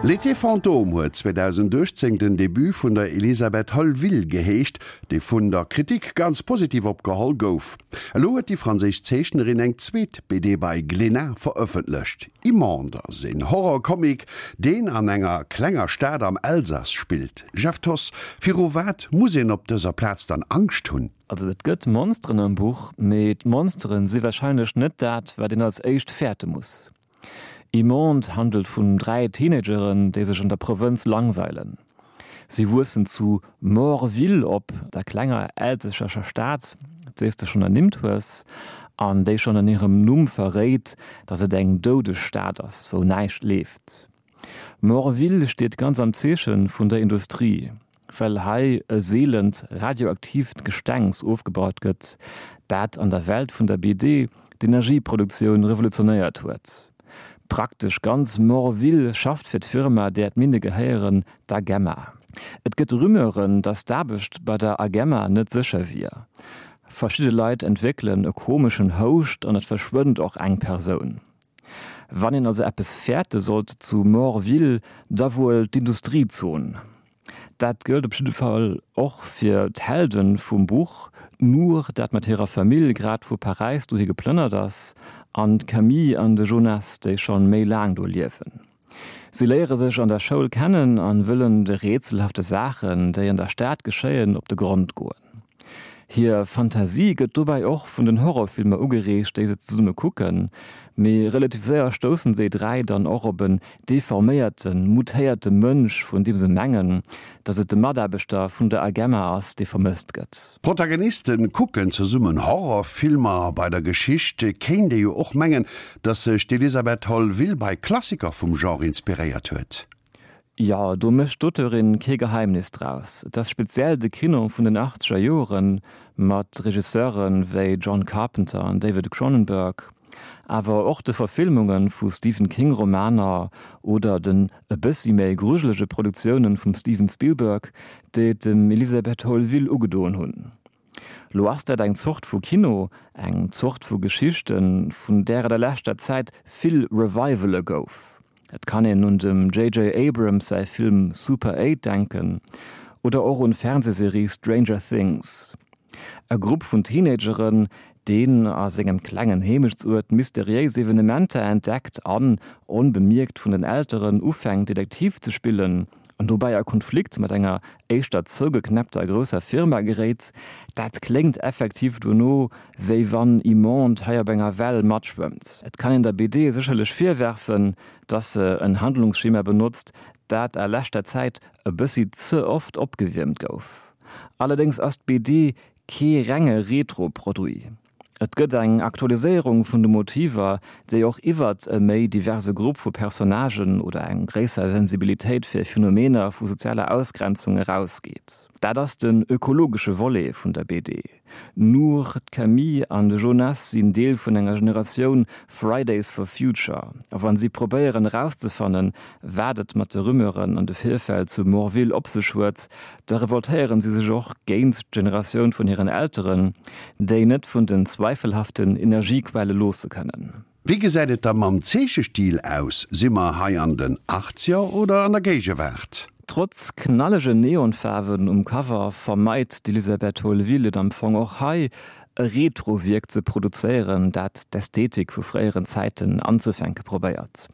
L'été fantôme huet 2018 den Debut vun der Elisabeth Holleville geheescht, dee vun der Kritik ganz positiv opgeholl gouf. Elo huet déi franséisch Zeechnerin eng zweet BD bei Glénat verëffentlecht. Immonde ass een Horrorcomic, deen an enger klenger Stad am Elsass spillt. Jeff Thoss, viru wat muss een op dëser Plaz dann Angscht hunn? Also et gëtt Monsteren am Buch, mee d'Monsteren si warscheinlech net dat, wat een als éischt fäerte muss. Immonde handelt vun 3 Teenageren, déi sech an der Provënz langweilen. Si wuessen zu Morville op, der klenger elsässescher Stad, déi s de schonn ernimmt hues, an déi schonn an hirem Numm verréit, datt et eng doudeg Stad ass, wou näischt leeft. Morville steet ganz am Zeeche vun der Industrie, well hei e seelent radioaktiivt Gestengs ofgebaut gëtt, dat an der Welt vun der BD d'Energieproduktioun revolutionéiert huet. Praktesch ganz Morville schafft fir d'Firma, där d'Minne gehéieren, d'Agemma. Et gëtt Rumeuren, datt d'Aarbecht bei der Agemma net sécher wier. Verschidde Leit entwéckelen e komeschen Houscht an et verschwënnt och eng Persoun. Wann een also eppes fäerte sollt zu Morville, da wuel d'Industriezon. Dat gëllt op jidde Fall och fir d'Helde vum Buch, d'Nour, dat mat hirer Famill grad vu Paräis dohi geplënnert ass, an d'Camille an de Jonas, déi schonn méi laang do liewen. Si léiere sech an der Schoul kennen an wëllen de rätselhafte Saachen, déi an der Stad geschéien, op de Grond goen. Hir Fantasie gëtt dobäi och vun den Horrorfilmer ugereegt, déi se zesumme kucken, mee relativ séier stoussen déi 3 dann och op en deforméierten, mutéierte Mënsch, vun deem se mengen, datt et de Mataarbechter vun der Agemma ass, dee vermësst gëtt. D'Protagoniste kucken zesummen Horrorfilmer. Bei der Geschicht kéint ee jo och mengen, datt sech d'Elisabeth Holleville bei Klassiker vum Genre inspiréiert huet. Jo, do mécht d'Auteurin kee Geheimnis draus. Et ass speziell de Kino vun den achtzeger Joren, mat Regisseure wéi John Carpenter an David Cronenberg, awer och de Verfilmunge vu Stephen King Romaner oder den e bëssi méi grujelege Produktioune vum Steven Spielberg, déi et dem Elisabeth Holleville ugedoen hunn. Lo ass dat eng Zort vu Kino, eng Zort vu Geschichten, vun där et a leschter Zäit vill Revivale gouf. Et kann een un dem JJ. Abrams säi Film Super 8 denken oder och un d'Fernsehserie Stranger Things. E Grupp vun Teenageren, deen a sengem klengen Heemechtsuert mysteriéis Evenementer entdeckt an, onbemierkt vun den Elteren, ufänkt Detektiv ze spillen an dobäi a Konflikt mat enger éischter zougeknäppter grousser Firma geréit, dat kléngt effektiv dono, wéi wann Immonde hei op enger Well matschwëmmt. Et kann een der BD sécherlech virwerfen, dass se en Handlungsschema benotzt, dat a leschter Zäit e bëssi ze oft opgewiermt gouf. Allerdéngs ass d'BD kee renge Retro-Produit. Et gëtt eng Aktualiséierung vun de Motiver, déi och iwwert e méi diverse Grupp vu Personnagen oder eng gréisser Sensibilitéit fir Phenomener vu sozialer Ausgrenzung erausgeet. Dat ass den ökologesche Volet vun der BD. D'Nour, d'Camille an de Jonas sinn Deel vun enger Generatioun Fridays for Future a wa si probéieren erauszefannen, wat et mat de Rumeuren an de Virfäll zu Morville op sech huet, Da revoltéieren si sech och géint d'Generatioun vun hiren Elteren, déi net vun den zweifelhaften Energiequelle loosse kënnen. Wéi gesäit et da mam Zeechestil aus? Si mer hei an den Achtzeger oder an der Géigewaart? Trotz knallegen Neonfaarwen um Cover vermeit d'Elisabeth Holleville et am Fong och hei, e Retro-Wierk ze produzéieren, dat d'Ästhetik vu fréieren Zäiten anzefänke probéiert.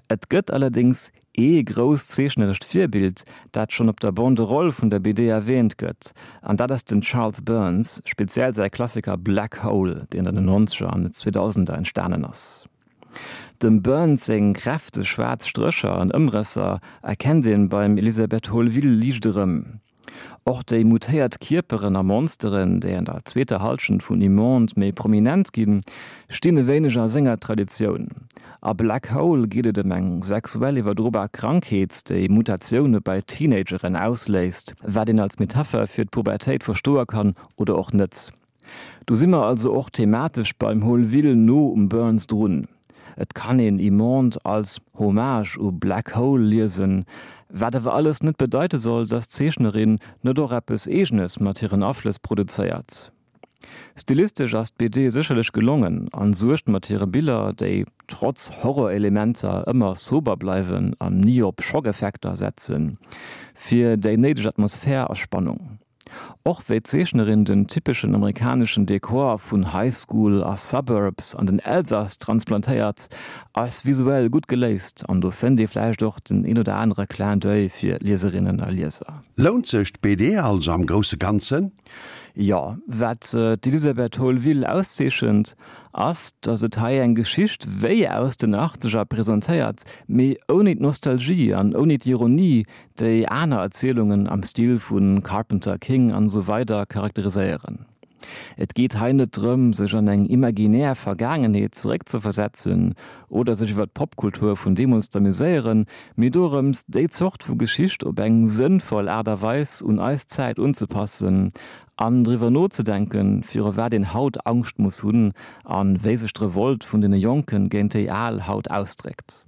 Et gëtt allerdéngs Ee grousst zeechnerescht Virbild, dat schonn op der Banderole vun der BD erwäänt gëtt, an dat ass den Charles Burns, speziell säi Klassiker Black Hole, deen an den Nonzeger an den Zweedausender entstanen ass. Dem Burns seng kräfteg schwaarz Strécher an Ëmrësser erkennt een beim Elisabeth Holleville liicht erëm. Och déi mutéiert Kierperen a Monsteren, déi an der zweeter Hallschent vun Immonde méi prominent ginn, stinn e wéineg a senger Traditioun. A Black Hole geet et ëm eng sexuell iwwerdrobar Krankheet, déi Mutatioune bei Teenageren ausléist, wat een als Metapher fir d'Pubertéit verstoe kann oder och net. Do si mer also och thematesch beim Holleville no um Burns drun. Et kann een Immonde als Hommage u Black Hole liesen, wat awer alles net bedeite soll, dass d'Zeechnerin net och eppes Eegenes mat hiren Aflëss produzéiert. Stilistesch ass d'BD sécherlech gelongen an suergt mat hire Biller, déi trotz Horrorelementer ëmmer sober bleiwen an ni op Schockeffekter setzen, fir déi néideg Atmosphär a Spannung. Och wéi d'Zeechnerin den typeschen amerikaneschen Dekor vun High School a Suburbs an den Elsass transplantéiert, ass visuell gutt geléist an do fënnt ee vläicht och den een oder anere Clin d'oeil fir Lieserinnen a Lieser. Lount sech d'BD also am grousse Ganzen? Jo, wat d'Elisabeth Holleville auszeechent, ass, datt et hei eng Geschicht wéi aus den Achtzeger presentéiert, mee ouni d'Nostalgie an ouni d'Ironie, déi aner Erzielungen am Stil vu Carpenter, King an esou weider charakteriséieren. Et geet hei net drëm, sech an eng imaginär Vergaangenheet zeréckzeversetzen oder sech iwwer d'Popkultur vun deemools z'amuséieren, mee dorëms, déi Zort vu Geschicht op eng sënnvoll Aart a Weis un eis Zäit unzepassen an driwwer nozedenken, viru wat een haut Angscht muss hunn a wéi sech d'Revolt vun deene Jonken géint déi Al haut ausdréckt.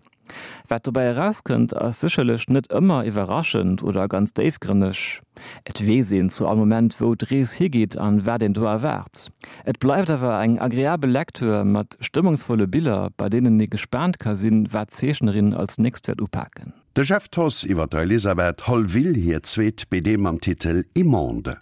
Wat dobäi erauskënnt, ass sécherlech net ëmmer iwwerraschend oder ganz déifgrënneg. Et weess een zu all Moment, wou d'Rees higeet an wat een do erwaart. Et bleift awer eng agreabel Lecture mat stëmmungsvolle Biller, bei deenen ee gespaant ka sinn, wat d'Zeechnerin als nächst wäert upaken. De Jeff Thoss iwwer der Elisabeth Holleville hir zweet BD mam Titel Immonde.